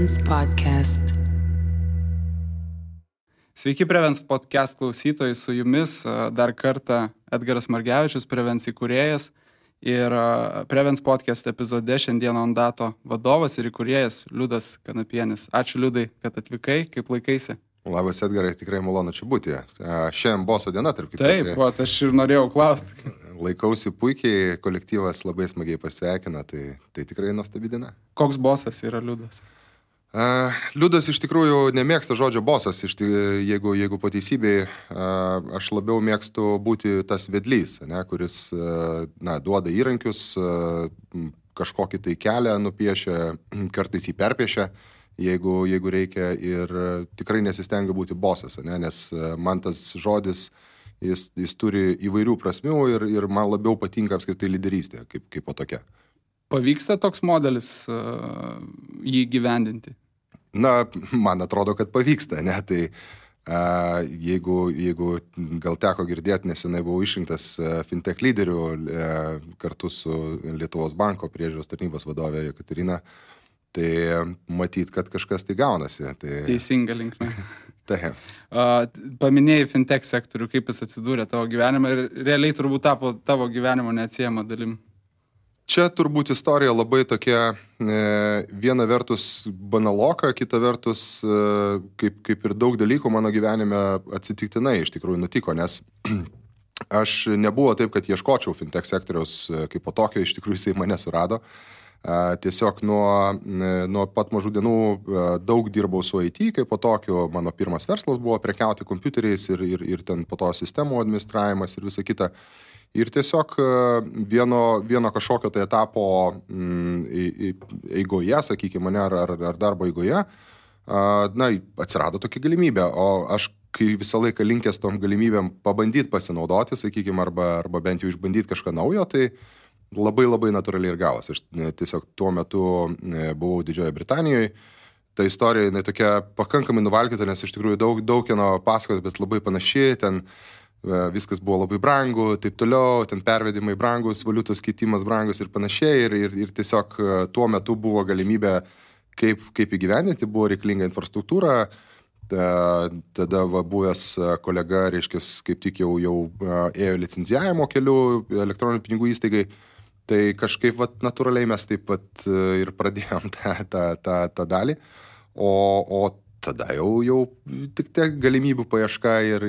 Prevens Podcast. Sveiki Prevens Podcast klausytojai, su jumis dar kartą Edgaras Margevičius, Prevens įkūrėjas ir Prevens Podcast epizode šiandien Ondato vadovas ir įkūrėjas Liudas Kanapienis. Ačiū Liudai, kad atvykai, kaip laikaisi? Labas Edgarai, tikrai malonu čia būti. Šiandien boso diena, tarp kitų. Taip, aš ir norėjau klausti. Laikausi puikiai, kolektyvas labai smagiai pasveikina, tai tikrai nuostabi diena. Koks bosas yra Liudas? Liudas iš tikrųjų nemėgsta žodžio bosas, jeigu po teisybei, aš labiau mėgstu būti tas vedlys, kuris duoda įrankius, kažkokį tai kelią nupiešia, kartais jį perpiešia, jeigu reikia, ir tikrai nesistengia būti bosas, nes man tas žodis, jis turi įvairių prasmių ir man labiau patinka apskritai lyderystė, kaip po tokia. Pavyksta toks modelis jį gyvendinti? Man atrodo, kad pavyksta, tai jeigu gal teko girdėti, nesenai buvau išrinktas fintech lyderių kartu su Lietuvos banko priežiūros tarnybos vadovė Jekaterina, tai matyt, kad kažkas tai gaunasi. Teisinga linkme. Taip. Paminėjai fintech sektorių, kaip jis atsidūrė tavo gyvenimą ir realiai turbūt tapo tavo gyvenimo neatsiejama dalim. Čia turbūt istorija labai tokia, viena vertus banaloka, kita vertus, kaip ir daug dalykų mano gyvenime atsitiktinai iš tikrųjų nutiko, nes aš nebuvo taip, kad ieškočiau fintech sektoriaus kaip po tokio, iš tikrųjų jisai mane surado. Tiesiog nuo pat mažų dienų daug dirbau su IT, kaip po tokio mano pirmas verslas buvo prekiauti kompiuteriais ir ten po to sistemų administravimas ir visa kita. Ir tiesiog vieno kažkokio tai etapo eigoje, sakykime, ar darbo eigoje, atsirado tokia galimybė, o aš kai visą laiką linkęs tom galimybėm pabandyti pasinaudoti, sakykime, arba bent jau išbandyti kažką naujo, tai labai natūraliai ir gavos. Aš tiesiog tuo metu buvau Didžiojoje Britanijoje. Ta istorija, jinai tokia pakankamai nuvalkyta, nes iš tikrųjų daug kieno pasakoti, bet labai panašiai. Ten viskas buvo labai brangu, taip toliau, ten pervedimai brangus, valiutos keitimas brangus ir panašiai. Ir tiesiog tuo metu buvo galimybė, kaip įgyvendinti, buvo reikalinga infrastruktūra. Tada buvęs kolega, reiškis, kaip tik jau ėjo licenzijavimo keliu elektroninių pinigų įstaigai. Tai kažkaip natūraliai mes taip pat ir pradėjom tą dalį, o tada jau tik tiek galimybių paieška ir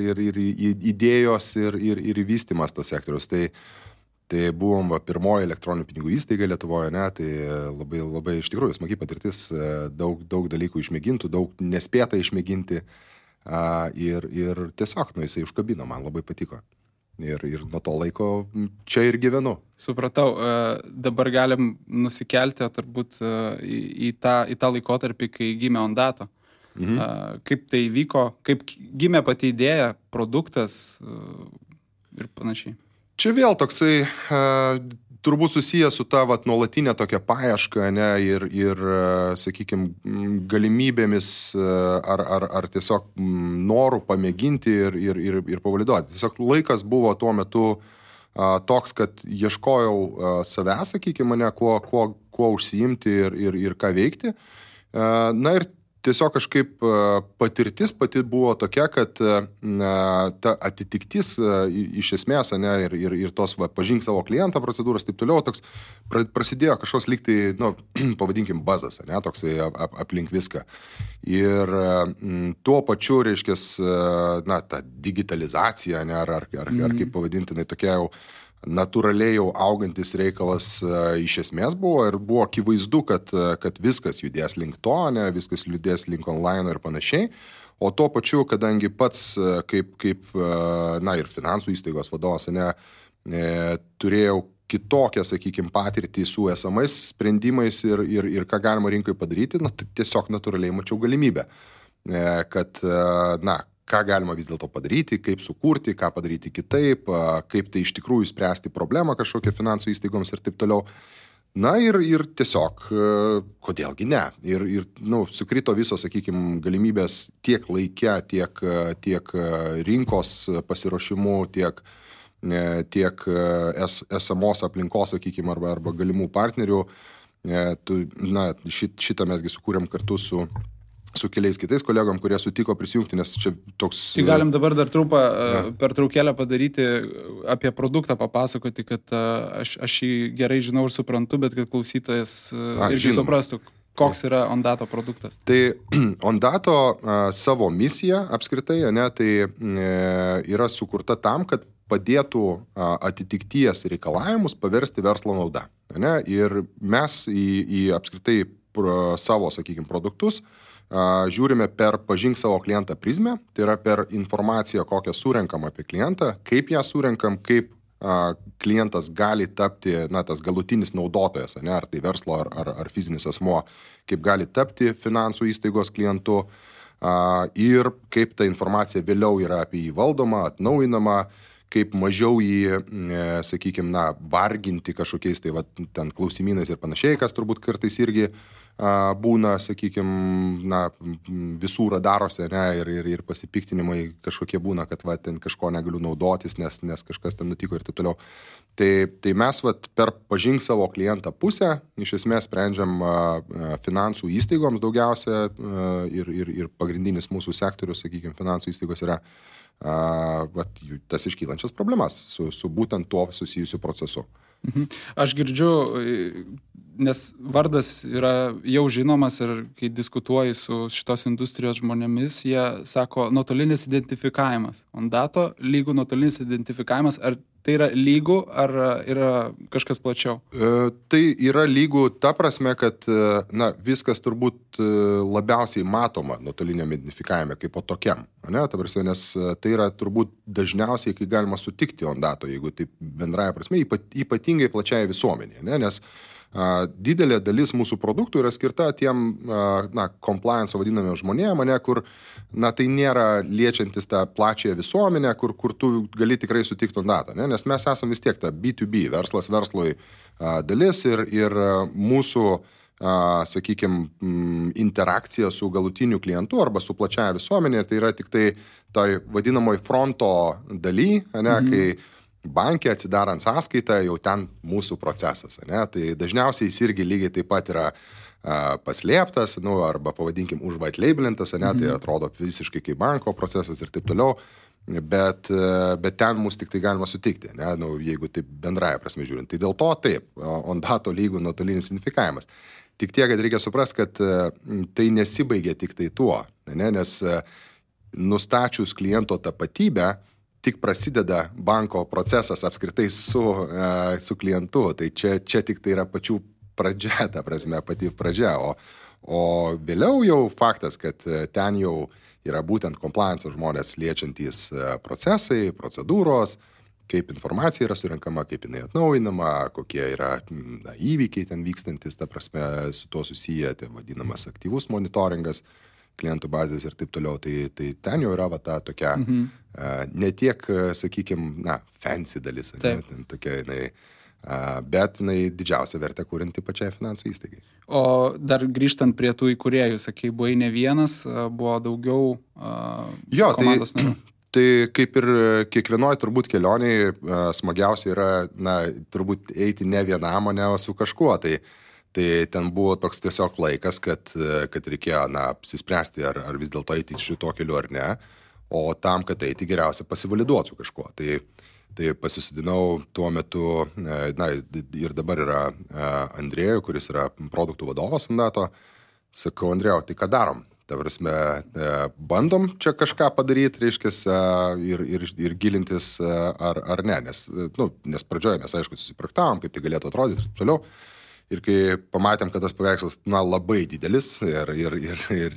idėjos ir vystymas tos sektoriaus. Tai buvom pirmoji elektroninių pinigų įstaiga Lietuvoje, tai labai iš tikrųjų smagi patirtis, daug dalykų išmėgintų, daug nespėta išmėginti ir tiesiog jisai užkabino, man labai patiko. Ir nuo to laiko čia ir gyvenu. Supratau, dabar galim nusikelti turbūt į tą laikotarpį, kai gimė Ondato. Kaip tai vyko, kaip gimė pati idėja, produktas ir panašiai. Čia vėl toksai turbūt susijęs su ta nuolatinė tokia paieška, ir sakykime, galimybėmis ar tiesiog norų pamėginti ir pavaliduoti. Tiesiog laikas buvo tuo metu toks, kad ieškojau savęs, sakykime, kuo užsiimti ir ką veikti. Ir tiesiog kažkaip patirtis pati buvo tokia, kad ta atitiktis iš esmės, ir tos pažink savo klientą procedūros, taip toliau, toks prasidėjo kažkoks lyg tai, pavadinkim, bazas, toksai aplink viską. Ir tuo pačiu, reiškės, ta digitalizacija, ar kaip pavadintinai, tokia jau natūraliai jau augantis reikalas iš esmės buvo, ir buvo akivaizdu, kad viskas judės link to, viskas judės link online ir panašiai. O tuo pačiu, kadangi pats kaip ir finansų įstaigos vadovas, turėjau kitokią, sakykime, patirtį su esamais sprendimais ir ką galima rinkoje padaryti, tiesiog natūraliai mačiau galimybę, kad, ką galima vis dėlto padaryti, kaip sukurti, ką padaryti kitaip, kaip tai iš tikrųjų spręsti problemą kažkokią finansų įstaigoms ir taip toliau. Ir tiesiog, kodėlgi ne. Ir sukrito visos, sakykime, galimybės tiek laike, tiek rinkos pasiruošimu, tiek esamos aplinkos, sakykime, arba galimų partnerių Šitą mesgi sukūrėm kartu su keliais kitais kolegom, kurie sutiko prisijungti, nes čia toks... Tai galim dabar dar trumpą pertraukėlę padaryti, apie produktą papasakoti, kad aš jį gerai žinau ir suprantu, bet kad klausytojas irgi suprastų, koks yra Ondato produktas. Tai Ondato savo misija apskritai, tai yra sukurta tam, kad padėtų atitikties reikalavimus paversti verslo nauda. Ir mes į apskritai savo, sakykime, produktus žiūrime per pažink savo klientą prizmę, tai yra per informaciją, kokią surenkam apie klientą, kaip ją surenkam, kaip klientas gali tapti, tas galutinis naudotojas, ar tai verslo, ar fizinis asmuo, kaip gali tapti finansų įstaigos klientu ir kaip ta informacija vėliau yra apie jį valdoma, atnaujinama, kaip mažiau jį, sakykime, varginti kažkokiais ten klausimynais ir panašiai, kas turbūt kartais irgi būna, sakykime, visų radarose, ir pasipiktinimai kažkokie būna, kad ten kažko negaliu naudotis, nes kažkas ten nutiko ir taip toliau. Tai mes per pažink savo klientą pusę, iš esmės sprendžiam finansų įstaigoms daugiausia ir pagrindinis mūsų sektorius, sakykime, finansų įstaigos yra tas iškylančias problemas su būtent tuo susijusiu procesu. Aš girdžiu, nes vardas yra jau žinomas ir kai diskutuoji su šitos industrijos žmonėmis, jie sako nuotolinis identifikavimas. Ondato lygų nuotolinis identifikavimas, ar tai yra lygų, ar yra kažkas plačiau? Tai yra lygų ta prasme, kad viskas turbūt labiausiai matoma nuotoliniam identifikavime kaip po tokiam. Ta prasme, nes tai yra turbūt dažniausiai, kai galima sutikti Ondato, jeigu taip bendraja prasme, ypatingai plačiai visuomenė, nes didelė dalis mūsų produktų yra skirta tiem compliance vadinamiem žmonėm, kur tai nėra liečiantis tą plačią visuomenę, kur tu gali tikrai sutikti Ondatą, nes mes esame vis tiek ta B2B, verslas verslui dalis ir mūsų, sakykime, interakcija su galutiniu klientu arba su plačiaja visuomenė, tai yra tik tai toj vadinamoj fronto daly, kai bankė atsidarant sąskaitą, jau ten mūsų procesas. Tai dažniausiai jis irgi lygiai taip pat yra paslėptas, arba pavadinkim užvaitlaibelintas, tai atrodo visiškai kaip banko procesas ir taip toliau, bet ten mus tik tai galima sutikti, jeigu taip bendraja prasme žiūrint. Tai dėl to taip, Ondato lygų nuotolinis identifikavimas. Tik tiek, kad reikia suprasti, kad tai nesibaigia tik tai tuo, nes nustačius kliento tapatybę, tik prasideda banko procesas apskritai su klientu, tai čia tik tai yra pačių pradžia, ta prasme, pati pradžia, o vėliau jau faktas, kad ten jau yra būtent compliance žmonės liečiantys procesai, procedūros, kaip informacija yra surenkama, kaip jinai atnaujinama, kokie yra įvykiai ten vykstantis, ta prasme, su tuo susiję, tai vadinamas aktyvus monitoringas, klientų bazės ir taip toliau, tai ten jau yra ta tokia, ne tiek, sakykime, fancy dalis, tokia jinai, bet jinai didžiausia vertė kūrinti pačiai finansų įstaigai. O dar grįžtant prie tų įkūrėjų, sakai, buvai ne vienas, buvo daugiau komandos narių. Tai kaip ir kiekvienoj turbūt kelioniai smagiausia yra, turbūt eiti ne vienam, o ne su kažkuo, tai ten buvo toks tiesiog laikas, kad reikėjo apsispręsti, ar vis dėlto eiti šito keliu ar ne, o tam, kad eiti geriausia pasivaliduoti su kažkuo. Tai pasisudinau tuo metu, ir dabar yra Andrėjų, kuris yra produktų vadovas Ondato, sakau, Andrėjau, tai ką darom? Ta prasme, bandom čia kažką padaryti, reiškias, ir gilintis ar ne, nes pradžioje mes, aišku, susipraktavom, kaip tai galėtų atrodyti ir toliau. Ir kai pamatėm, kad tas paveikslas labai didelis ir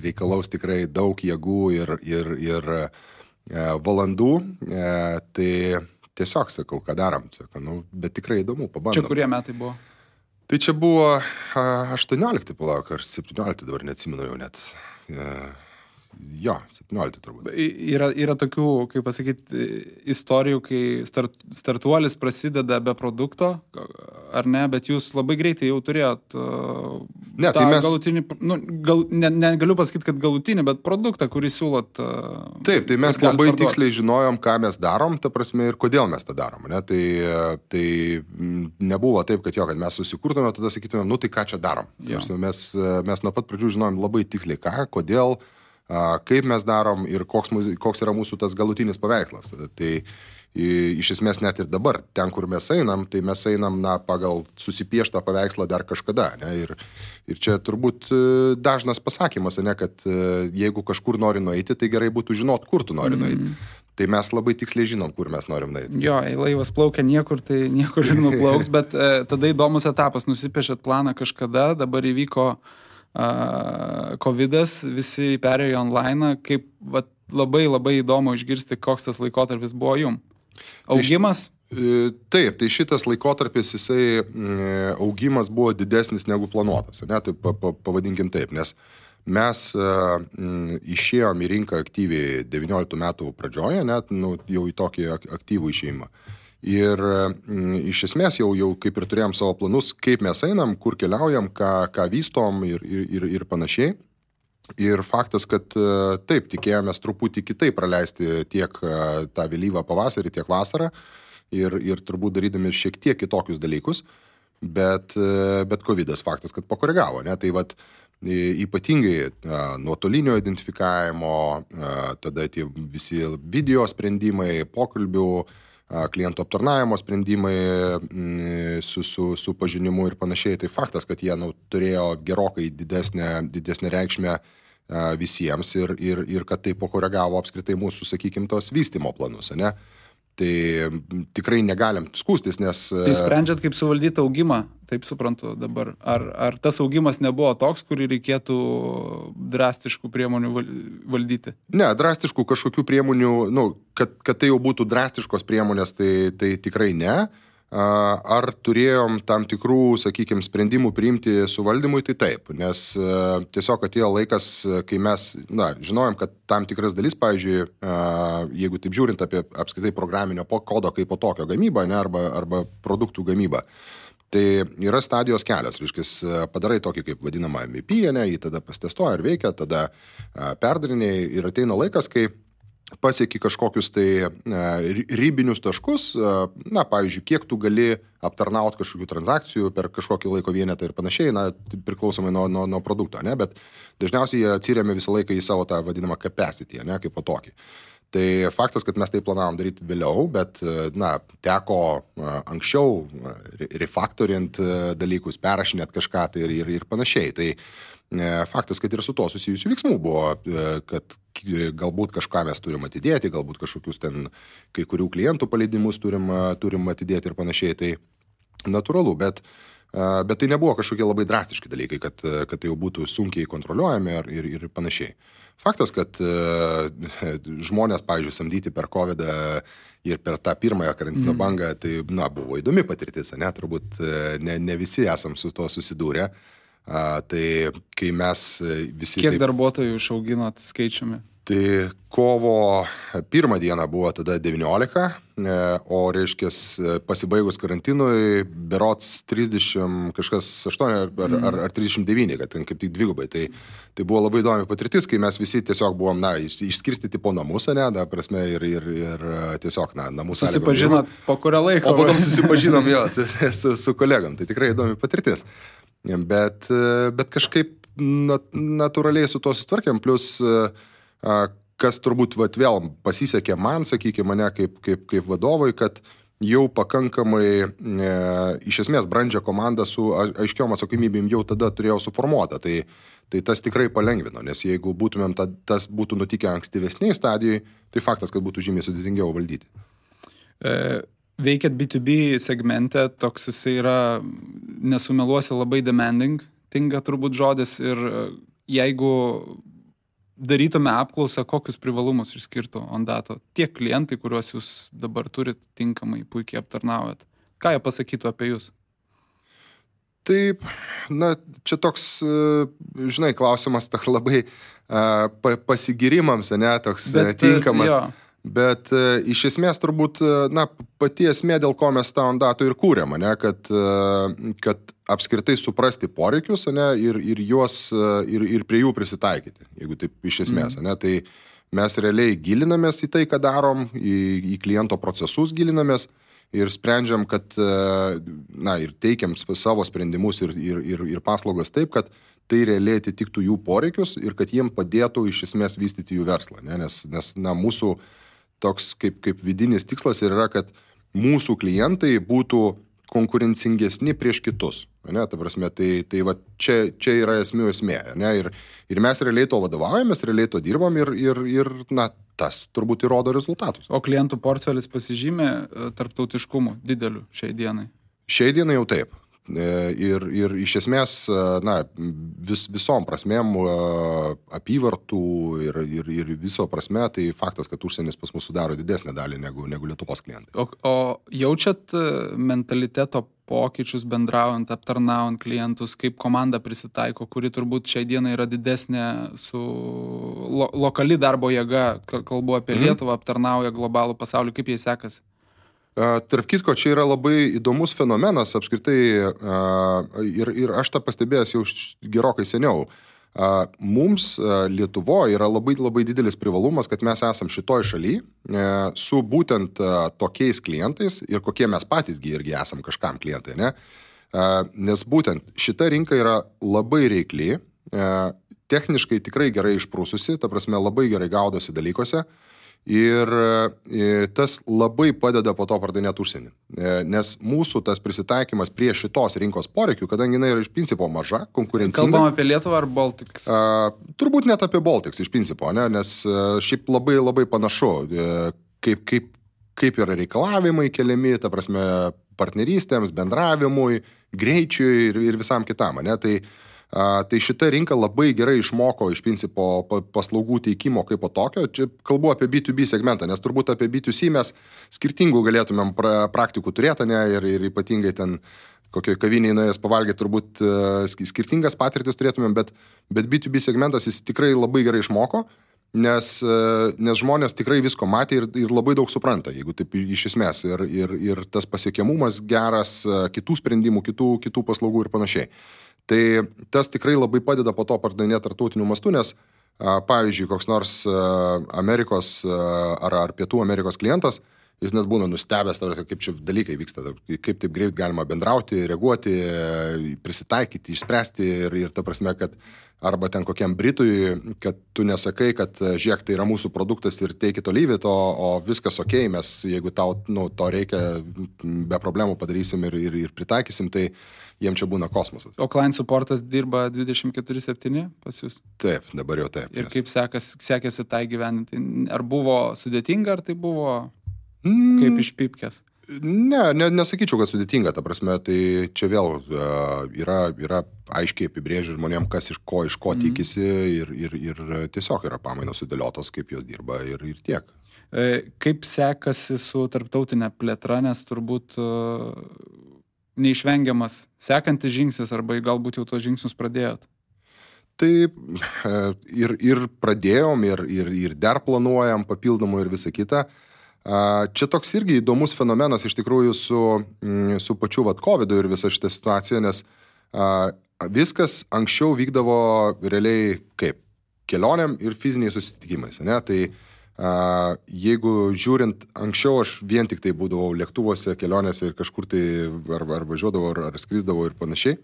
reikalaus tikrai daug jėgų ir valandų, tai tiesiog sakau, ką darom. Sakau, bet tikrai įdomu, pabandom. Čia kurie metai buvo? Tai čia buvo 18, palauk, ar 17, dabar neatsimenu jau net. Jo, 17 turbūt. Yra tokių, kaip pasakyti, istorijų, kai startuolis prasideda be produkto, ar ne, bet jūs labai greitai jau turėjot Ne, tai mes... galutinį, negaliu pasakyti, kad galutinį, bet produktą, kurį siūlot. Taip, tai mes labai tiksliai žinojom, ką mes darom, ta prasme, ir kodėl mes tą darom. Ne? Tai nebuvo taip, kad mes susikurtume, tada sakytume, tai ką čia darom. Mes nuo pat pradžių žinojom labai tiksliai ką, kodėl, kaip mes darom ir koks yra mūsų tas galutinis paveikslas. Tai iš esmės net ir dabar, ten, kur mes einam, tai mes einam pagal susipieštą paveikslą dar kažkada. Ne? Ir čia turbūt dažnas pasakymas, ne, kad jeigu kažkur nori nueiti, tai gerai būtų žinot, kur tu nori nueiti. Tai mes labai tiksliai žinom, kur mes norim nueiti. Jo, laivas plaukia niekur, tai niekur ir nuplauks, bet tada įdomus etapas, nusipiešėt planą kažkada, dabar įvyko COVID'as, visi perėjo online, kaip labai labai įdomu išgirsti, koks tas laikotarpis buvo jum. Augimas? Taip, tai šitas laikotarpis, jisai augimas buvo didesnis negu planuotas, ne, tai pavadinkim taip, nes mes išėjom į rinką aktyviai 19 metų pradžioje, net jau į tokį aktyvų išėjimą. Ir iš esmės jau kaip ir turėjom savo planus, kaip mes einam, kur keliaujam, ką vystom ir panašiai. Ir faktas, kad taip, tikėjomės truputį kitaip praleisti tiek tą vėlyvą pavasarį, tiek vasarą ir turbūt darydami šiek tiek kitokius dalykus, bet COVID'as faktas, kad pakoregavo. Ne? Tai ypatingai nuotolinio identifikavimo, tada tie visi video sprendimai, pokalbių, klientų aptarnavimo sprendimai su pažinimu ir panašiai. Tai faktas, kad jie turėjo gerokai didesnę reikšmę visiems ir kad tai pakoregavo apskritai mūsų, sakykim, tos vystymo planus, ne? Tai tikrai negalim skūstis, nes... Tai sprendžiat, kaip suvaldyti augimą, taip suprantu dabar. Ar tas augimas nebuvo toks, kurį reikėtų drastiškų priemonių valdyti? Ne, drastiškų kažkokių priemonių, kad tai jau būtų drastiškos priemonės, tai tikrai ne. Ar turėjom tam tikrų, sakykime, sprendimų priimti suvaldymui, tai taip, nes tiesiog atėjo laikas, kai mes žinojom, kad tam tikras dalis, pavyzdžiui, jeigu taip žiūrint apie apskritai programinio kodo kaip po tokio gamybą, ne, arba produktų gamybą, tai yra stadijos kelios, reiškia, padarai tokį kaip vadinamą MVP, ne, jį tada pastestuoja ir veikia, tada perdariniai ir ateina laikas, kai pasieki kažkokius tai ribinius taškus, pavyzdžiui, kiek tu gali aptarnauti kažkokių transakcijų per kažkokį laiko vienetą ir panašiai, priklausomai nuo produkto, ne, bet dažniausiai jie atsiremia visą laiką į savo tą vadinamą capacity, ne, kaip po tokį. Tai faktas, kad mes tai planavom daryti vėliau, bet, teko anksčiau refaktorint dalykus, perrašinėt kažką tai ir panašiai. Tai faktas, kad ir su to susijusių veiksmų buvo, kad galbūt kažką mes turim atidėti, galbūt kažkokius ten kai kurių klientų paleidimus turim atidėti ir panašiai, tai natūralu, bet tai nebuvo kažkokie labai drastiški dalykai, kad tai jau būtų sunkiai kontroliuojami ir panašiai. Faktas, kad žmonės, pavyzdžiui, samdyti per COVID-ą ir per tą pirmąją karantino bangą, tai buvo įdomi patirtis, ne, turbūt ne visi esam su to susidūrę. Tai kai mes visi... Kiek darbuotojų išauginot skaičiumi? Tai kovo 1 dieną buvo tada 19, o reiškės pasibaigus karantinui berots 30 kažkas 8 ar 39, kad ten kaip tik dvigubai. Tai buvo labai įdomi patirtis, kai mes visi tiesiog buvom, išskirstyti po namus, ne, prasme, ir tiesiog, namų sąlygom. Susipažinot po kurio laiko? O potom susipažinom su kolegom, tai tikrai įdomi patirtis. Bet kažkaip natūraliai su to sutvarkėm, plus kas turbūt vėl pasisekė man, sakykime, mane kaip vadovui, kad jau pakankamai iš esmės brandžią komandą su aiškiom atsakomybėm jau tada turėjau suformuotą. Tai tas tikrai palengvino, nes jeigu būtumėm tas būtų nutikę ankstyvesniai stadijai, tai faktas, kad būtų žymiai sudėtingiau valdyti. Veikiat B2B segmente, toks jisai yra, nesumeluosi, labai demanding, tinka turbūt žodis, ir jeigu darytume apklausą, kokius privalumus išskirtų Ondato tiek klientai, kuriuos jūs dabar turit tinkamai, puikiai aptarnaujat, ką jie pasakytų apie jūs? Taip, čia toks, žinai, klausimas toks labai pasigirimams, ne, toks tinkamas. Jo. Bet iš esmės turbūt, pati esmė, dėl ko mes tą Ondato ir kūrėm, ne, kad apskritai suprasti poreikius, ne, ir juos, ir prie jų prisitaikyti, jeigu taip iš esmės, ne, tai mes realiai gilinamės į tai, ką darom, į kliento procesus gilinamės ir sprendžiam, kad, ir teikiam savo sprendimus ir paslaugas taip, kad tai realiai atitiktų jų poreikius ir kad jiem padėtų iš esmės vystyti jų verslą, ne, nes mūsų toks kaip vidinis tikslas yra, kad mūsų klientai būtų konkurencingesni prieš kitus. Ne, ta prasme, tai va, čia yra esmė. Ne, ir mes realiai to vadovaujamės, realiai to dirbam ir tas turbūt įrodo rezultatus. O klientų portfelis pasižymė tarptautiškumu dideliu šiai dienai? Šiai dienai jau taip. Ir iš esmės, visom prasmėm apyvartų ir viso prasme, tai faktas, kad užsienis pas mus sudaro didesnę dalį negu Lietuvos klientai. O jaučiat mentaliteto pokyčius bendraujant, aptarnaujant klientus, kaip komanda prisitaiko, kuri turbūt šiai dienai yra didesnė su lokali darbo jėga, kalbu apie Lietuvą, aptarnauja globalų pasaulį, kaip jai sekasi? Tarp kitko, čia yra labai įdomus fenomenas apskritai ir aš tą pastebėjęs jau gerokai seniau. Mums Lietuvoje yra labai, labai didelis privalumas, kad mes esam šitoj šaly su būtent tokiais klientais ir kokie mes patys irgi esam kažkam klientai, ne? Nes būtent šita rinka yra labai reikli, techniškai tikrai gerai išprūsusi, ta prasme labai gerai gaudosi dalykuose. Ir tas labai padeda po to pardavinėti užsienį. Nes mūsų tas prisitaikymas prie šitos rinkos poreikių, kadangi jinai yra iš principo maža, konkurencinga. Kalbam apie Lietuvą ar Baltics? Turbūt net apie Baltics iš principo, ne? Nes šiaip labai, labai panašu, kaip yra reikalavimai keliami, ta prasme, partnerystėms, bendravimui, greičiui ir visam kitam, ne? Tai šita rinka labai gerai išmoko iš principo paslaugų teikimo kaip po tokio. Čia kalbu apie B2B segmentą, nes turbūt apie B2C mes skirtingų galėtumėm praktikų turėti, ne, ir ypatingai ten kokioje kavinėje nuėjęs pavalgyti turbūt skirtingas patirtis turėtumėm, bet B2B segmentas jis tikrai labai gerai išmoko, nes žmonės tikrai visko matė ir labai daug supranta, jeigu taip iš esmės, ir tas pasiekiamumas geras, kitų sprendimų, kitų paslaugų ir panašiai. Tai tas tikrai labai padeda po to pardavinėti tarptautiniu mastu, nes, pavyzdžiui, koks nors Amerikos ar Pietų Amerikos klientas, jis net būna nustebęs, kaip čia dalykai vyksta, kaip taip greit galima bendrauti, reaguoti, prisitaikyti, išspręsti ir ta prasme, kad arba ten kokiam Britui, kad tu nesakai, kad žiūrėk, tai yra mūsų produktas ir take it or leave it, o viskas okei, mes jeigu tau to reikia, be problemų padarysim ir pritaikysim, tai jiem čia būna kosmosas. O client supportas dirba 24/7 pas jūs? Taip, dabar jau taip. Ir kaip sekėsi tai gyveninti? Ar buvo sudėtinga, ar tai buvo kaip iš pipkės? Nesakyčiau, kad sudėtinga, ta prasme, tai čia vėl yra aiškiai apibrėžę žmonėm, kas iš ko tikisi ir tiesiog yra pamainos sudėliotos, kaip jos dirba ir tiek. Kaip sekasi su tarptautinė plėtra, nes turbūt neišvengiamas sekantis žingsnis arba galbūt jau tos žingsnius pradėjot? Tai ir pradėjom ir dar planuojam papildomų ir visą kitą. Čia toks irgi įdomus fenomenas iš tikrųjų su pačiu COVID-u ir visa šitą situaciją, nes viskas anksčiau vykdavo realiai kaip kelioniam ir fiziniais susitikimais, ne? Tai jeigu žiūrint, anksčiau aš vien tik tai būdavau lėktuvuose, kelionėse ir kažkur tai ar važiuodavau, ar skrisdavau ir panašiai,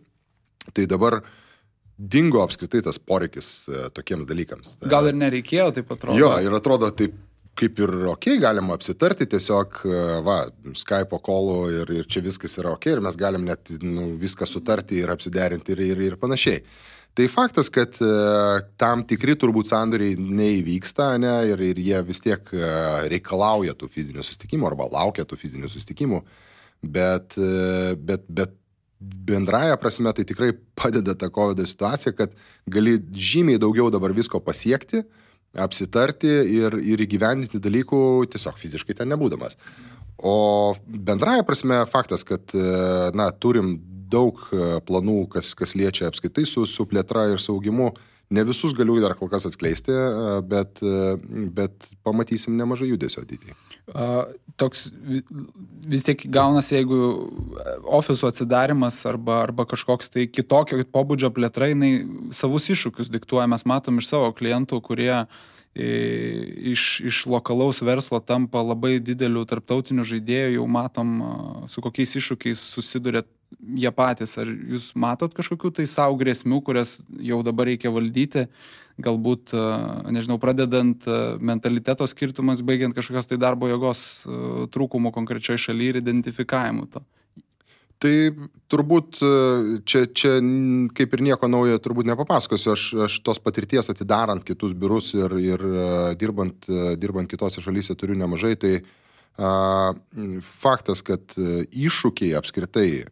tai dabar dingo apskritai tas poreikis tokiems dalykams. Gal ir nereikėjo, taip atrodo? Jo, ir atrodo taip kaip ir galima apsitarti tiesiog, Skype'o call'u ir čia viskas yra ir mes galim net viską sutarti ir apsiderinti ir panašiai. Tai faktas, kad tam tikri turbūt sandoriai neįvyksta, ne, ir jie vis tiek reikalauja tų fizinių susitikimų arba laukia tų fizinių susitikimų, bet bendraja prasme tai tikrai padeda ta COVID situacija, kad gali žymiai daugiau dabar visko pasiekti, apsitarti ir įgyvendinti dalykų tiesiog fiziškai ten nebūdamas. O bendraja prasme faktas, kad turim daug planų, kas liečia apskaitai su plėtra ir saugimu, Ne visus galiu dar kol kas atskleisti, bet pamatysim nemažai judesio ateityje. Toks vis tiek gaunasi, jeigu ofiso atsidarimas arba kažkoks tai kitokio pobūdžio plėtra, jinai savus iššūkius diktuoja. Mes matom iš savo klientų, kurie iš lokalaus verslo tampa labai didelių tarptautinių žaidėjų, jau matom, su kokiais iššūkiais susiduria jie patys. Ar jūs matot kažkokių tai savo grėsmių, kurias jau dabar reikia valdyti, galbūt, nežinau, pradedant mentaliteto skirtumas, baigiant kažkokios tai darbo jėgos trūkumų konkrečioj šalyje ir identifikavimu to? Tai turbūt čia kaip ir nieko naujo turbūt nepapasakosiu. Aš tos patirties atidarant kitus biurus ir dirbant kitose šalyse turiu nemažai. Tai faktas, kad iššūkiai apskritai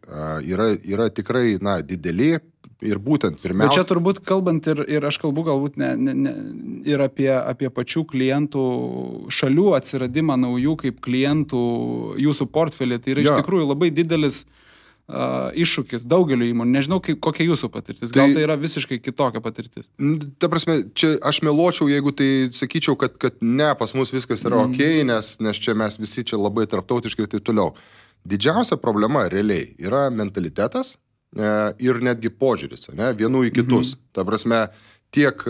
yra tikrai dideli ir būtent pirmiausia. Bet čia turbūt kalbant ir aš kalbu galbūt ir apie pačių klientų šalių atsiradimą naujų kaip klientų jūsų portfelį. Tai yra iš tikrųjų labai didelis iššūkis daugeliu įmonių. Nežinau, kokia jūsų patirtis. Gal tai yra visiškai kitokia patirtis? Ta prasme, čia aš meluočiau, jeigu tai sakyčiau, kad ne, pas mus viskas yra okei, nes čia mes visi čia labai tarptautiškai ir taip toliau. Didžiausia problema realiai yra mentalitetas ir netgi požiūris, ne, vienų į kitus. Ta prasme, tiek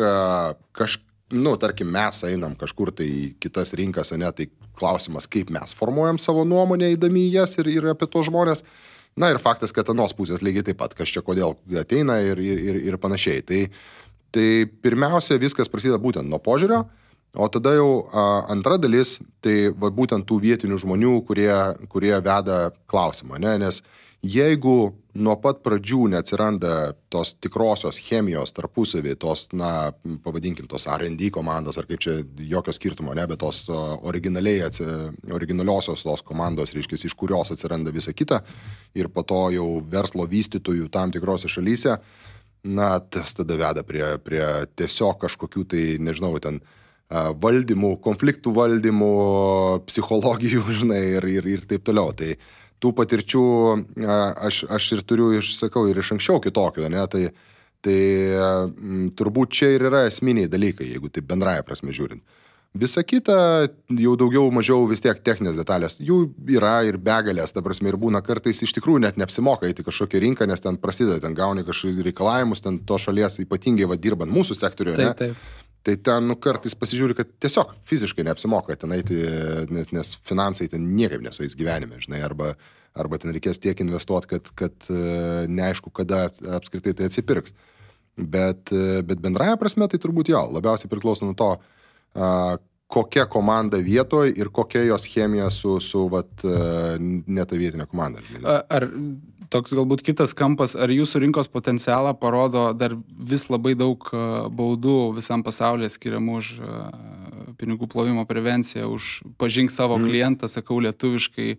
tarkim, mes einam kažkur tai į kitas rinkas, ne, tai klausimas, kaip mes formuojam savo nuomonę įdami į jas ir apie to žmonės. Na ir faktas, kad anos pusės lygiai taip pat, kas čia kodėl ateina ir panašiai. Tai pirmiausia, viskas prasideda būtent nuo požiūrio, o tada jau antra dalis, tai būtent tų vietinių žmonių, kurie veda klausimą. Ne? Nes jeigu nuo pat pradžių neatsiranda tos tikrosios chemijos tarpusavį, tos, pavadinkim, tos R&D komandos, ar kaip čia jokio skirtumo, ne, bet tos originaliosios tos komandos, reiškia, iš kurios atsiranda visa kita, ir po to jau verslo vystytojų tam tikrose šalyse, tas tada veda prie tiesiog kažkokių tai, nežinau, ten valdymų, konfliktų valdymų, psichologijų, žinai, ir taip toliau. Tai tų patirčių aš ir turiu, sakau, ir iš anksčiau kitokių, ne, tai turbūt čia ir yra esminiai dalykai, jeigu taip bendraja prasme žiūrint. Visa kita, jau daugiau mažiau vis tiek techninės detalės, jų yra ir begalės, ta prasme, ir būna kartais iš tikrųjų net neapsimoka eiti kažkokią rinką, nes ten prasideda, ten gauni kažkokius reikalavimus, ten to šalies ypatingai dirbant mūsų sektoriuje, ne? Taip. Tai ten kartais pasižiūri, kad tiesiog fiziškai neapsimoka ten eiti, nes finansai ten niekaip nesueis gyvenime, žinai, arba ten reikės tiek investuoti, kad neaišku, kada apskritai tai atsipirks. Bet bendraja prasme tai turbūt jo, labiausiai priklauso nuo to, kokia komanda vietoje ir kokia jos chemija su ne ta vietinė komanda. Ar toks galbūt kitas kampas, ar jūsų rinkos potencialą parodo dar vis labai daug baudų visam pasaulyje skiriamų už pinigų plovimo prevenciją, už pažink savo klientą, sakau lietuviškai,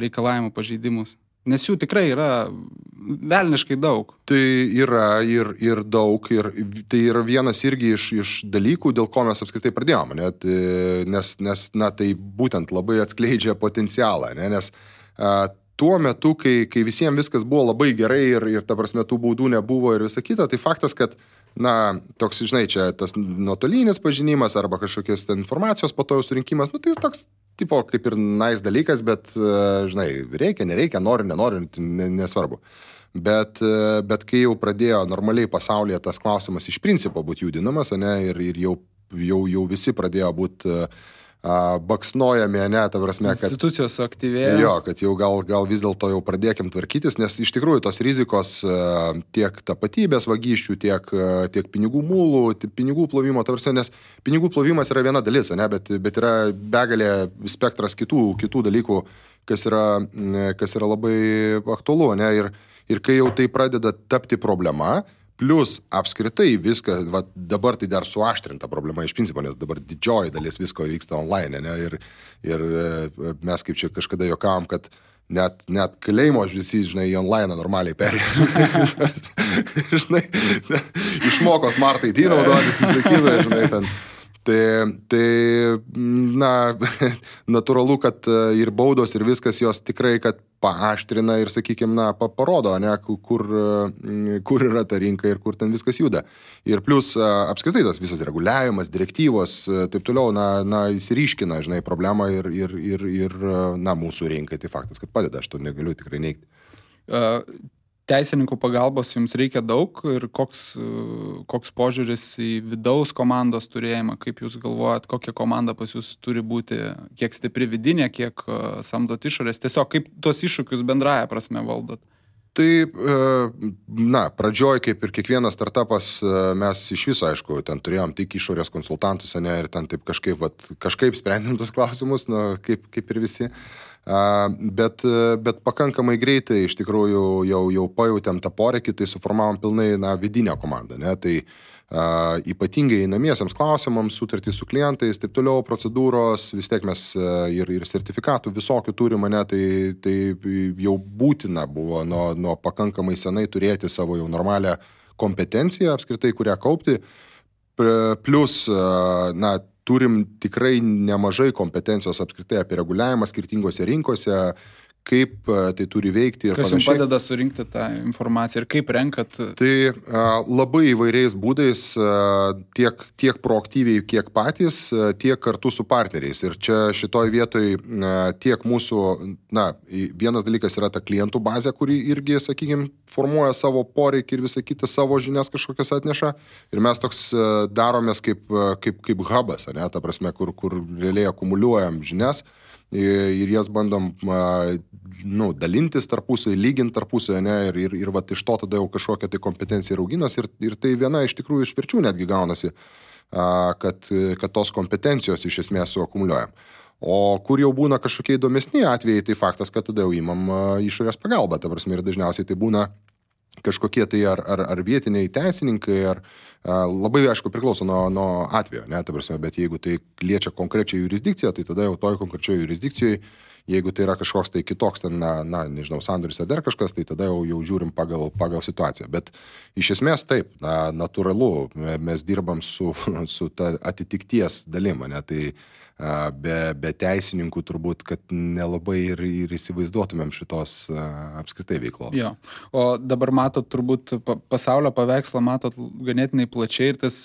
reikalavimų pažeidimus? Nes jų tikrai yra velniškai daug. Tai yra ir daug, ir tai yra vienas irgi iš dalykų, dėl ko mes apskritai pradėjome, nes tai būtent labai atskleidžia potencialą, nes tuo metu, kai visiems viskas buvo labai gerai ir ta prasme tų baudų nebuvo ir visa kita, tai faktas, kad toks, žinai, čia tas nuotolinis pažinimas arba kažkokios informacijos po to jau surinkimas, tai toks tipo kaip ir nice dalykas, bet, žinai, reikia, nereikia, nori, nenori, nesvarbu. Bet kai jau pradėjo normaliai pasaulyje tas klausimas iš principo būti judinamas, ne, ir jau visi pradėjo būti baksnojami, ne, ta prasme, kad institucijos aktyvėjo. Jo, kad jau gal vis dėlto jau pradėkim tvarkytis, nes iš tikrųjų tos rizikos tiek tapatybės vagysčių, tiek pinigų mulų, pinigų plovimo, ta prasme, nes pinigų plovimas yra viena dalis, ne, bet yra begalė spektras kitų dalykų, kas yra labai aktualu, ne, ir kai jau tai pradeda tapti problema, plus apskritai viską, dabar tai dar suaštrinta problema iš principo, nes dabar didžioji dalis visko vyksta online, ne, ir mes kaip čia kažkada juokavom, kad net kalėjimo visi, žinai, į online normaliai perėjo. Žinai, išmoko Smart ID naudotis, įsakyda, žinai, ten. Tai na, natūralu, kad ir baudos, ir viskas jos tikrai, kad paaštrina ir, sakykime, na, parodo, ne, kur yra ta rinka ir kur ten viskas juda. Ir plus apskritai tas visas reguliavimas, direktyvos, taip toliau, na, įsiriškina, žinai, problemą ir na, mūsų rinkai. Tai faktas, kad padeda, aš to negaliu tikrai neigti. Teisininkų pagalbos jums reikia daug ir koks požiūris į vidaus komandos turėjimą, kaip jūs galvojat, kokia komanda pas jūs turi būti, kiek stipri vidinė, kiek samdot išorės, tiesiog kaip tuos iššūkius bendraja prasme valdot? Tai, na, pradžioj, kaip ir kiekvienas startupas, mes iš viso, aišku, ten turėjom tik išorės konsultantus, ne, ir ten taip kažkaip sprendėm tos klausimus, na, kaip ir visi. Bet pakankamai greitai iš tikrųjų jau pajautėm tą poreikį, tai suformavom pilnai vidinę komandą, ne? Tai ypatingai einamiesiems klausimams, sutartys su klientais, taip toliau, procedūros, vis tiek mes ir sertifikatų visokių turime, ne? Tai jau būtina buvo nuo pakankamai senai turėti savo jau normalią kompetenciją apskritai, kurią kaupti, plus, na, turim tikrai nemažai kompetencijos apskritai apie reguliavimą skirtingose rinkose, kaip tai turi veikti ir panašiai. Kas jums padeda surinkti tą informaciją ir kaip renkat? Tai labai įvairiais būdais, tiek proaktyviai, kiek patys, tiek kartu su partneriais. Ir čia šitoj vietoj tiek mūsų, na, vienas dalykas yra ta klientų bazė, kuri irgi, sakykime, formuoja savo poreikį ir visą kitą savo žinias kažkokias atneša. Ir mes toks daromės kaip hubas, ne, ta prasme, kur realiai akumuliuojam žinias. Ir jas bandom dalintis tarpusai, lyginti tarpusai, ne, ir vat iš to tada jau kažkokia tai kompetencija rauginas ir tai viena iš tikrųjų išvirčių netgi gaunasi, kad tos kompetencijos iš esmės suakumuliuojam. O kur jau būna kažkokie įdomesni atvejai, tai faktas, kad tada jau imam išorės pagalbą, ta prasme, ir dažniausiai tai būna kažkokie tai ar vietiniai teisininkai, ar labai, aišku, priklauso nuo atvejo, ne, ta prasme, bet jeigu tai liečia konkrečią jurisdikciją, tai tada jau toj konkrečioje jurisdikcijoje, jeigu tai yra kažkoks tai kitoks, ten, nežinau, sandoris ar dar kažkas, tai tada jau žiūrim pagal situaciją. Bet iš esmės taip, natūralu, mes dirbam su ta atitikties dalim, ne, tai be teisininkų turbūt, kad nelabai ir įsivaizduotumėm šitos apskritai veiklos. Jo. O dabar matot turbūt pasaulio paveikslą, matot ganėtinai plačiai ir tas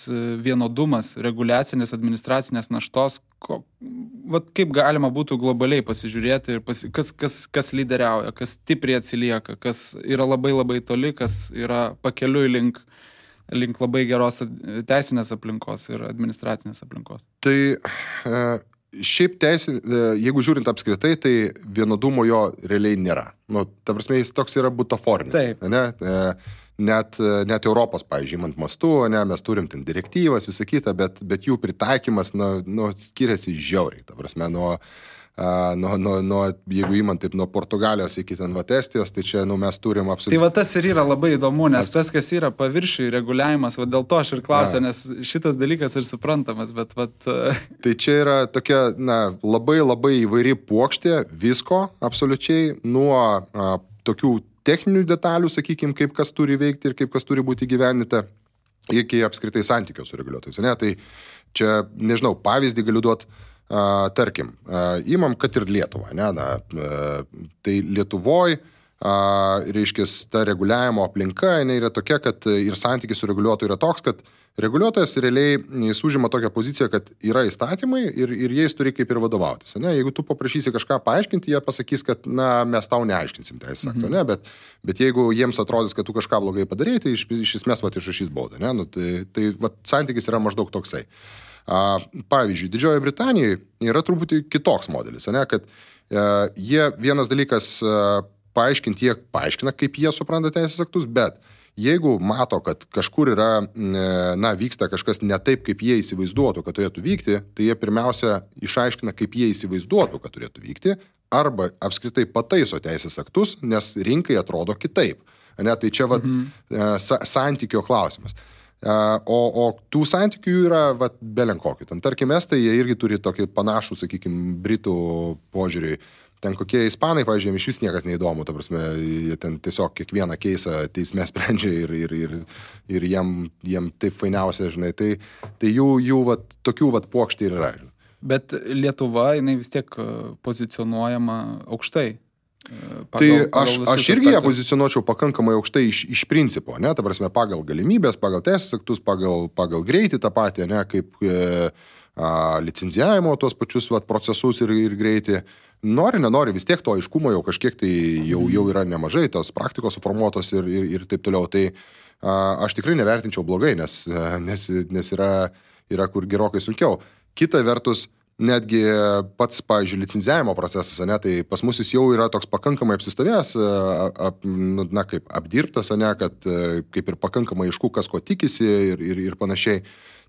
vienodumas, reguliacinės, administracinės naštos, kaip galima būtų globaliai pasižiūrėti, kas lyderiauja, kas stipriai atsilieka, kas yra labai labai toli, kas yra pakeliui link labai geros teisinės aplinkos ir administracinės aplinkos. Tai šiaip jeigu žiūrint apskritai, tai vienodumo jo realiai nėra. Nu, ta prasme, jis toks yra butaforinis. Taip. Ne? Net Europos, pavyzdžiui, imant mastu, ne, mes turim ten direktyvas, visą kitą, bet jų pritaikymas skiriasi žiauriai. Ta prasme, jeigu įmant taip nuo Portugalijos iki ten Estijos, tai čia mes turim absoliučiai. Tai tas ir yra labai įdomu, nes tas, kas yra paviršiui reguliavimas, dėl to aš ir klausiu, nes šitas dalykas ir suprantamas, bet Tai čia yra tokia, labai labai įvairi puokštė visko absoliučiai, nuo tokių techninių detalių, sakykime, kaip kas turi veikti ir kaip kas turi būti įgyvendinta, iki apskritai santykio su reguliuotojais. Ne? Tai čia, nežinau, pavyzdį galiu duoti. Tarkim, imam, kad ir Lietuvą, tai Lietuvoj, reiškia, ta reguliavimo aplinka, jinai yra tokia, kad ir santykis su reguliuotoju yra toks, kad reguliuotojas realiai jis užima tokią poziciją, kad yra įstatymai ir jais turi kaip ir vadovautis. Ne? Jeigu tu paprašysi kažką paaiškinti, jie pasakys, kad mes tau neaiškinsim teisės akto, ne? Bet jeigu jiems atrodys, kad tu kažką blogai padarei, tai iš esmės išrašys baudą. Ne? Tai santykis yra maždaug toksai. Pavyzdžiui, Didžiojoje Britanijoje yra truputį kitoks modelis, ne? Kad jie vienas dalykas paaiškinti, jie paaiškina, kaip jie supranta teisės aktus, bet jeigu mato, kad kažkur yra, vyksta kažkas ne taip, kaip jie įsivaizduotų, kad turėtų vykti, tai jie pirmiausia išaiškina, kaip jie įsivaizduotų, kad turėtų vykti, arba apskritai pataiso teisės aktus, nes rinkai atrodo kitaip. Ne? Tai čia santykio klausimas. O tų santykių yra belenkokį. Tarkim, estai, jie irgi turi tokį panašų, sakykime, britų požiūrį. ten kokie ispanai, pavyzdžiui, iš vis niekas neįdomu, ta prasme, jie ten tiesiog kiekvieną keisą teisme sprendžia ir jiem taip fainiausia, žinai, tai jų vat, tokių vat pokštį ir yra. Bet Lietuva, jinai vis tiek pozicionuojama aukštai. Tai aš irgi ją pozicionuočiau pakankamai aukštai iš principo, ne, ta prasme, pagal galimybės, pagal teisės aktus, pagal greitį tą patį, ne, kaip licenzijavimo tos pačius vat, procesus ir greitį. Nori, nenori, vis tiek to aiškumo jau kažkiek tai jau yra nemažai, tos praktikos suformuotos ir taip toliau. Tai aš tikrai nevertinčiau blogai, nes yra kur gerokai sunkiau. Kita vertus, netgi pats, pavyzdžiui, licenzijavimo procesas, ne, tai pas mus jis jau yra toks pakankamai apsistovėjęs, na, kaip apdirbtas, ne, kad kaip ir pakankamai aišku, kas ko tikisi ir panašiai.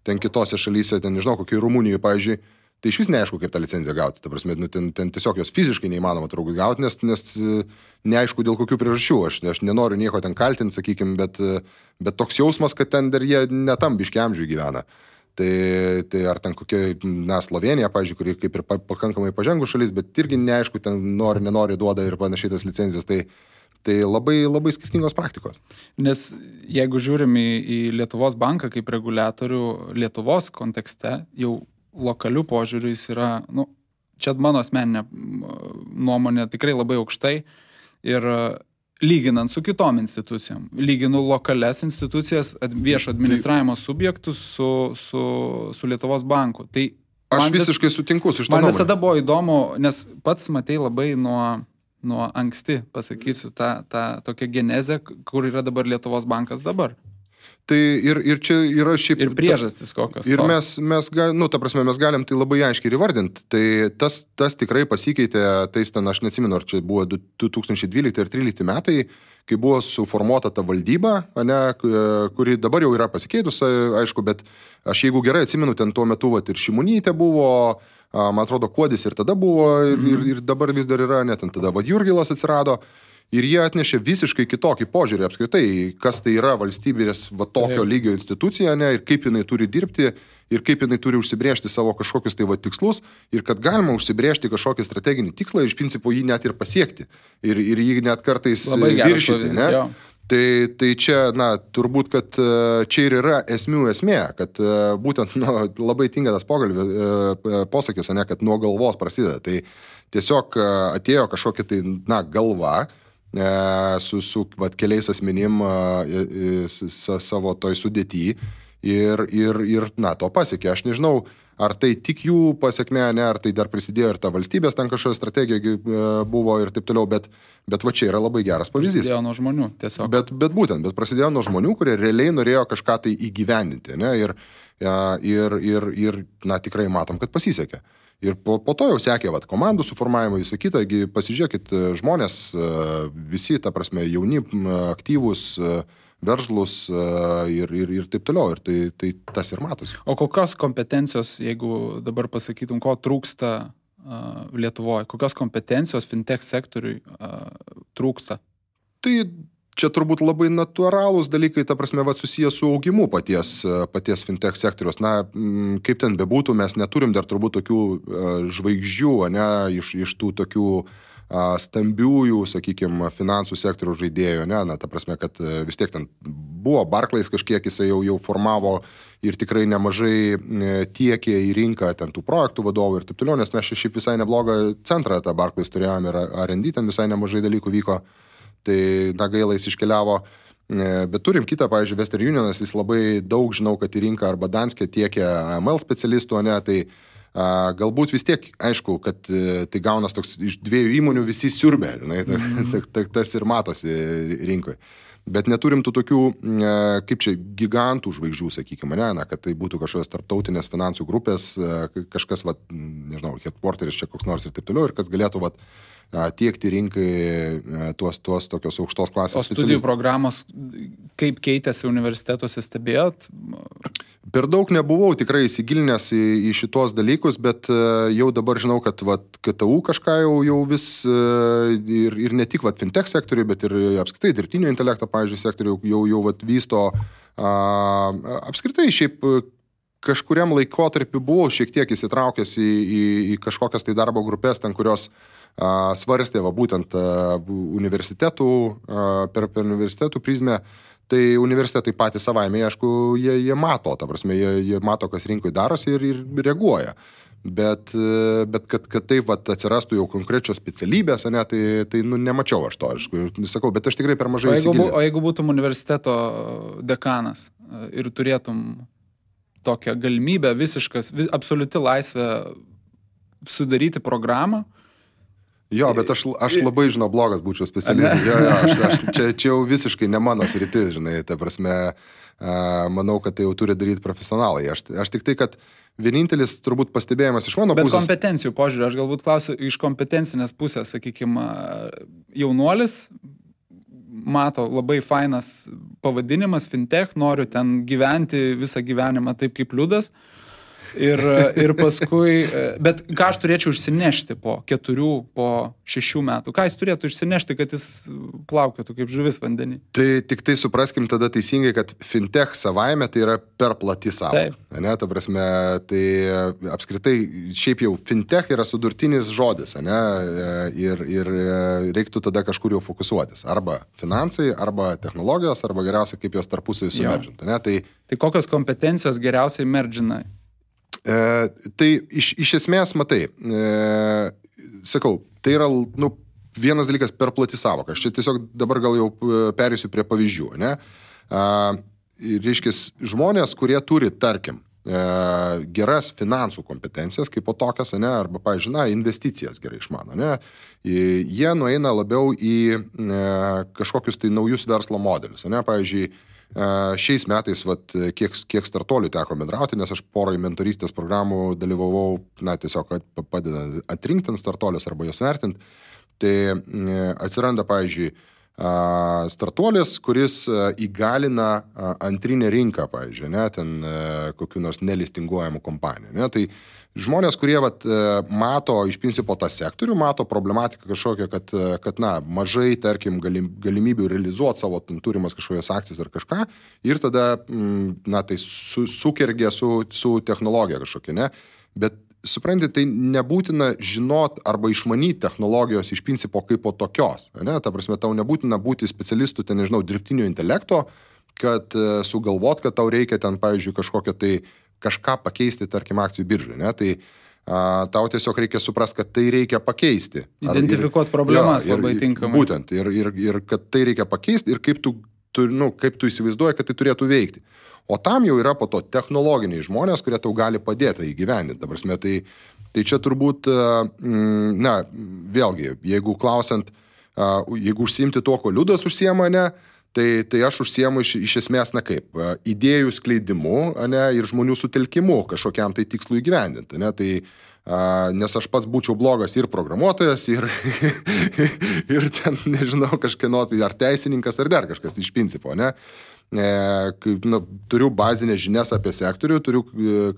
Ten kitose šalyse, ten nežinau, kokiai Rumunijoje, pavyzdžiui, tai iš vis neaišku, kaip tą licenciją gauti. Ta prasme, ten tiesiog jos fiziškai neįmanoma turbūt gauti, nes neaišku dėl kokių priežasčių. Aš nenoriu nieko ten kaltinti, sakykime, bet toks jausmas, kad ten dar jie netam biški amžiui gyvena. Tai ar ten kokia, na, Slovenija, pavyzdžiui, kuri kaip ir pakankamai pažengų šalis, bet irgi neaišku, ten nori, nenori duoda ir panašiai tas licencijas. Tai labai, labai skirtingos praktikos. Nes jeigu žiūrim į Lietuvos banką kaip reguliatorių Lietuvos kontekste, jau lokalių požiūrių jis yra, nu, čia mano asmeninė nuomonė tikrai labai aukštai ir lyginant su kitom institucijom. Lyginu lokalias institucijas, viešo administravimo subjektus su Lietuvos banku. Tai aš visiškai sutinku su šitą nuomonę. Man visada buvo įdomu, nes pats matei labai nuo anksti, pasakysiu, tą tokią genezę, kur yra dabar Lietuvos bankas dabar. Tai ir čia yra šiaip... Ir priežastis kokios. Ir mes galim tai labai aiškiai įvardinti. Tai tas tikrai pasikeitė, tais ten, aš neatsimenu, ar čia buvo 2012 ir 2013 metai, kai buvo suformuota ta valdyba, ne, kuri dabar jau yra pasikeitus, aišku, bet aš jeigu gerai atsimenu, ten tuo metu vat, ir Šimonytė buvo, man atrodo, Kuodis ir tada buvo, ir dabar vis dar yra, net tada Jurgilas atsirado. Ir jie atnešė visiškai kitokį požiūrį apskritai, kas tai yra valstybės tokio lygio institucija, ne, ir kaip jinai turi dirbti, ir kaip jinai turi užsibrėžti savo kažkokius tai tikslus, ir kad galima užsibrėžti kažkokį strateginį tikslą, iš principo jį net ir pasiekti, ir jį net kartais viršyti. Ne? Tai čia, na, turbūt, kad čia ir yra esmė, kad būtent labai tinka tas posakis, ne, kad nuo galvos prasideda. Tai tiesiog atėjo kažkokia tai, na, galva, su vat, keliais asmenim savo toj sudėty ir na, to pasiekė. Aš nežinau, ar tai tik jų pasiekmė, ne, ar tai dar prisidėjo ir ta valstybės ten kažkokia strategija buvo ir taip toliau, bet va čia yra labai geras pavyzdys. Prasidėjo nuo žmonių tiesiog. Bet prasidėjo nuo žmonių, kurie realiai norėjo kažką tai įgyvendinti, ne, ir na, tikrai matom, kad pasisekė. Ir po to jau sekė komandų suformavimo, visą kitą, pasižiūrėkit, žmonės visi, ta prasme, jauni, aktyvūs, veržlus ir taip toliau. Ir tai tas ir matosi. O kokios kompetencijos, jeigu dabar pasakytum, ko trūksta Lietuvoje, kokios kompetencijos fintech sektoriui trūksta? Tai čia turbūt labai natūralūs dalykai, ta prasme, susijęs su augimu paties fintech sektoriaus. Na, kaip ten bebūtų, mes neturim dar turbūt tokių žvaigždžių, ne, iš tų tokių stambiųjų, sakykime, finansų sektorių žaidėjų, ne, na, ta prasme, kad vis tiek ten buvo Barclays kažkiek, jisai jau formavo ir tikrai nemažai tiekė į rinką ten tų projektų vadovų ir taip toliau, nes mes šiaip visai neblogą centrą tą Barclays turėjom ir R&D ten visai nemažai dalykų vyko. Tai, na, gaila jis iškeliavo, bet turim kitą, pavyzdžiui, Western Unionas, jis labai daug, žinau, kad į rinką arba Danske tiekia AML specialistų, ne, tai galbūt vis tiek, aišku, kad tai gaunas toks iš dviejų įmonių visi siurbė, tas ir matosi rinkoje. Bet neturim tų tokių, kaip čia, gigantų žvaigždžių, sakykime, ne, na, kad tai būtų kažkokios tarptautinės finansų grupės, kažkas, nežinau, headquarteris čia koks nors ir taip toliau, ir kas galėtų, tiekti rinkai tuos tokios aukštos klasės specialistus. O studijų programos, kaip keitėsi universitetuose, stebėjot? Per daug nebuvau tikrai įsigilinęs į šitos dalykus, bet jau dabar žinau, kad KTU kažką jau vis ir ne tik fintech sektoriui, bet ir apskritai dirbtinio intelekto, pavyzdžiui, sektoriui jau vysto. Apskritai šiaip kažkuriam laikotarpiu buvau šiek tiek įsitraukęs į kažkokias tai darbo grupės, ten kurios svarstė būtent universitetų, per universitetų prizmę, tai universitetai patys savaime, aišku, jie mato, ta prasme, jie mato, kas rinkoje darosi ir reaguoja. Bet kad taip atsirastų jau konkrečios specialybės, ne, tai nemačiau aš to, sakau, bet aš tikrai per mažai įsigilinau. O jeigu būtum universiteto dekanas ir turėtum tokią galimybę visiškas, absoliuti laisvė sudaryti programą? Jo, bet aš labai, žinau, blogas būčiau specialybė. Čia jau visiškai ne mano sritis, žinai, ta prasme, manau, kad tai jau turi daryti profesionalai. Aš tik tai, kad vienintelis turbūt pastebėjimas iš mano pusės. Bet kompetencijų požiūrį, aš galbūt klausiu iš kompetencinės pusės, sakykime, jaunuolis mato labai fainas pavadinimas, fintech, noriu ten gyventi visą gyvenimą taip kaip Liudas. Ir paskui, bet ką aš turėčiau išsinešti po 4, po 6 metų? Ką jis turėtų išsinešti, kad jis plaukėtų kaip žuvis vandenį? Tai tik tai supraskim tada teisingai, kad fintech savaime tai yra per plati sąvoka. Ne, ta prasme, tai apskritai šiaip jau fintech yra sudurtinis žodis, ne, ir reiktų tada kažkur jau fokusuotis. Arba finansai, arba technologijos, arba geriausia, kaip jos tarpusavį sumeržinti. Tai kokios kompetencijos geriausiai merdžina? Tai iš esmės, matai, sakau, tai yra vienas dalykas per plati sąvoka. Aš čia tiesiog dabar gal jau perėsiu prie pavyzdžių. Ne? Reiškia, žmonės, kurie turi, tarkim, geras finansų kompetencijas, kaip po tokias, ne? Arba, pavyzdžiui, investicijas gerai išmano, ne? Jie nueina labiau į kažkokius tai naujus verslo modelius. Ne? Pavyzdžiui, šiais metais, kiek startuolių teko bendrauti, nes aš poroj mentorystės programų dalyvavau, tiesiog padeda atrinkti startuolius arba jos vertinti, tai atsiranda, pavyzdžiui, startuolis, kuris įgalina antrinę rinką, pavyzdžiui, ne, ten kokių nors nelistinguojamų kompanijų. Ne, tai žmonės, kurie mato iš principo tą sektorių, mato problematiką kažkokią, kad mažai, tarkim, galimybių realizuoti savo turimas kažkokias akcijas ar kažką ir tada, tai sukergia su technologija kažkokia, ne, bet supranti, tai nebūtina žinot arba išmanyti technologijos iš principo kaip po tokios, ne, ta prasme, tau nebūtina būti specialistų, ten, nežinau, dirbtinio intelekto, kad sugalvot, kad tau reikia ten, pavyzdžiui, kažką pakeisti, tarkim, akcijų biržai, ne, tai tau tiesiog reikia suprasti, kad tai reikia pakeisti. Identifikuoti problemas labai tinkamai. Būtent, ir kad tai reikia pakeisti ir kaip tu įsivaizduoji, kad tai turėtų veikti. O tam jau yra po to technologiniai žmonės, kurie tau gali padėti įgyvendinti. Ta prasme, tai čia turbūt, vėlgi, jeigu klausiant, jeigu užsiimti to, ko Liudas užsiema, ne, tai aš užsiemu iš esmės, idėjų skleidimu, ne, ir žmonių sutelkimu kažkokiam tai tikslui įgyvendinti. Ne, tai, nes aš pats būčiau blogas ir programuotojas, ir ten, nežinau, kažkieno, tai ar teisininkas, ar dar kažkas iš principo, ne. Turiu bazinės žinias apie sektorių, turiu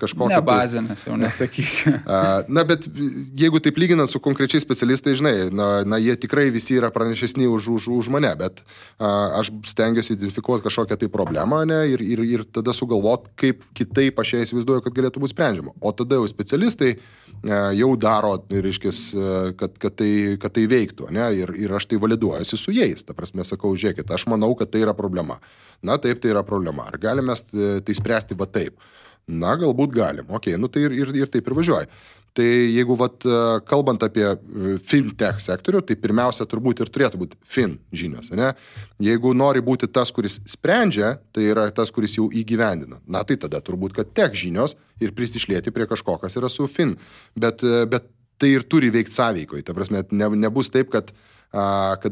kažkokią... Ne bazinės, jau nesakyk. Bet jeigu taip lyginant su konkrečiais specialistai, žinai, jie tikrai visi yra pranešesni už mane, bet aš stengiuosi identifikuoti kažkokią tai problemą, ne, ir tada sugalvoti, kaip kitaip aš ją įsivaizduoju, kad galėtų būti sprendžiama. O tada jau specialistai jau daro, reiškis, kad tai veiktų, ne, ir aš tai validuojuosi su jais. Ta prasme, sakau, žiūrėkit, aš manau, kad tai yra problema. Taip, tai yra problema. Ar galime tai spręsti taip? Galbūt galim. Tai ir taip ir važiuoja. Tai jeigu kalbant apie fintech sektorių, tai pirmiausia turbūt ir turėtų būti fin žinios. Ne? Jeigu nori būti tas, kuris sprendžia, tai yra tas, kuris jau įgyvendina. Tai tada turbūt, kad tech žinios ir prisišlieti prie kažko, kas yra su fin. Bet tai ir turi veikti sąveikoje. Ta prasme, nebus taip, kad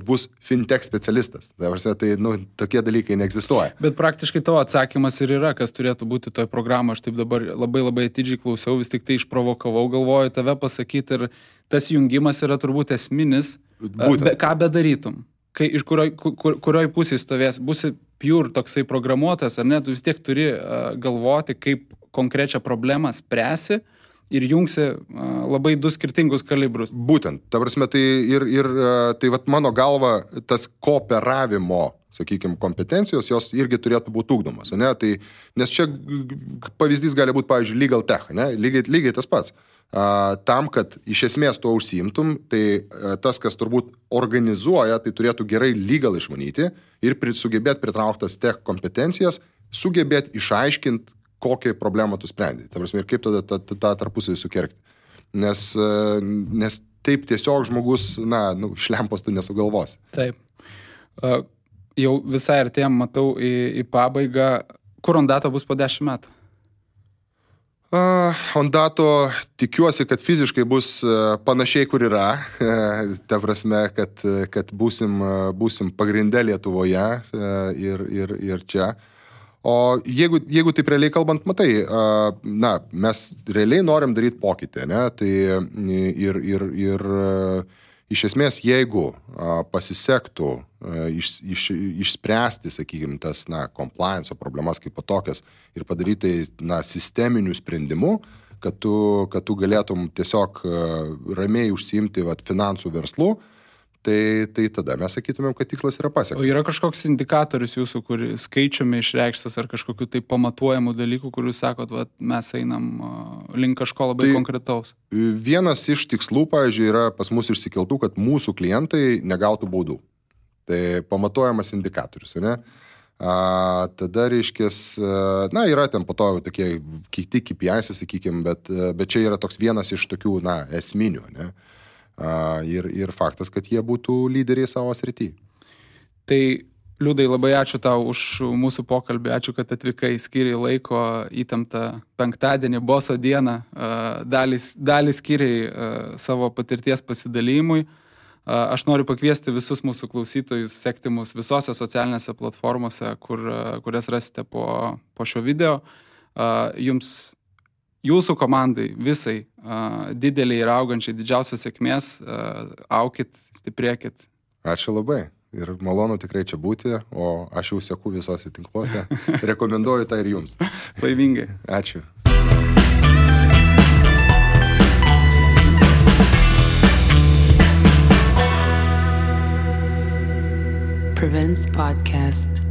bus fintech specialistas. Tai tokie dalykai neegzistuoja. Bet praktiškai tavo atsakymas ir yra, kas turėtų būti toje programoje. Aš taip dabar labai atidžiai klausiau, vis tik tai išprovokavau, galvoju tave pasakyti ir tas jungimas yra turbūt esminis. Ką bedarytum? Iš kurioj pusėje stovės? Būsi pure toksai programuotas, ar ne? Tu vis tiek turi galvoti, kaip konkrečią problemą spręsi ir jungsi labai du skirtingus kalibrus. Būtent, ta prasme, tai mano galva, tas kooperavimo, sakykime, kompetencijos, jos irgi turėtų būti ugdomos, ne? Tai, nes čia pavyzdys gali būti, pavyzdžiui, legal tech, ne? Lygiai tas pats. tam, kad iš esmės tuo užsiimtum, tai tas, kas turbūt organizuoja, tai turėtų gerai legal išmanyti ir sugebėti pritrauktas tech kompetencijas, sugebėti išaiškinti, kokią problemą tu sprendi. Ta prasme, ir kaip tada tą tarpusavį sukerkti. Nes taip tiesiog žmogus, šlempos tu nesugalvosi. Taip. Jau visai artėjom, matau, į pabaigą. Kur Ondato bus po 10 metų? Ondato tikiuosi, kad fiziškai bus panašiai, kur yra. Ta prasme, kad būsim pagrinde Lietuvoje ir čia. O jeigu taip realiai kalbant, matai, mes realiai norim daryti pokytį, ne? Tai ir iš esmės, jeigu pasisektų išspręsti, sakykime, tas compliance problemas kaip tokias ir padaryti sisteminių sprendimų, kad tu galėtum tiesiog ramiai užsiimti finansų verslu, tai tada mes sakytumėm, kad tikslas yra pasiektas. O yra kažkoks indikatorius jūsų, kur skaičiumi išreikštas ar kažkokiu tai pamatuojamų dalykų, kur jūs sakot, mes einam link kažko labai konkretaus? Vienas iš tikslų, pavyzdžiui, yra pas mus išsikeltų, kad mūsų klientai negautų baudų. Tai pamatuojamas indikatorius, ne? Tada reiškės, yra ten po to tokie kiti KPIs, sakykime, bet čia yra toks vienas iš tokių, esminių, ne? Ir faktas, kad jie būtų lyderiai savo srity. Tai, Liudai, labai ačiū tau už mūsų pokalbį, ačiū, kad atvykai, skiriai laiko įtemptą penktadienį, boso dieną, dalį skiriai savo patirties pasidalymui. Aš noriu pakviesti visus mūsų klausytojus sekti mus visose socialinėse platformose, kurias rasite po šio video. Jūsų komandai visai dideliai ir augančiai didžiausios sėkmės, aukit, stiprėkit. Ačiū labai ir malonu tikrai čia būti, o aš jau seku visose tinkluose. Rekomenduoju tą ir jums. Laimingai. Ačiū. Prevents Podcast.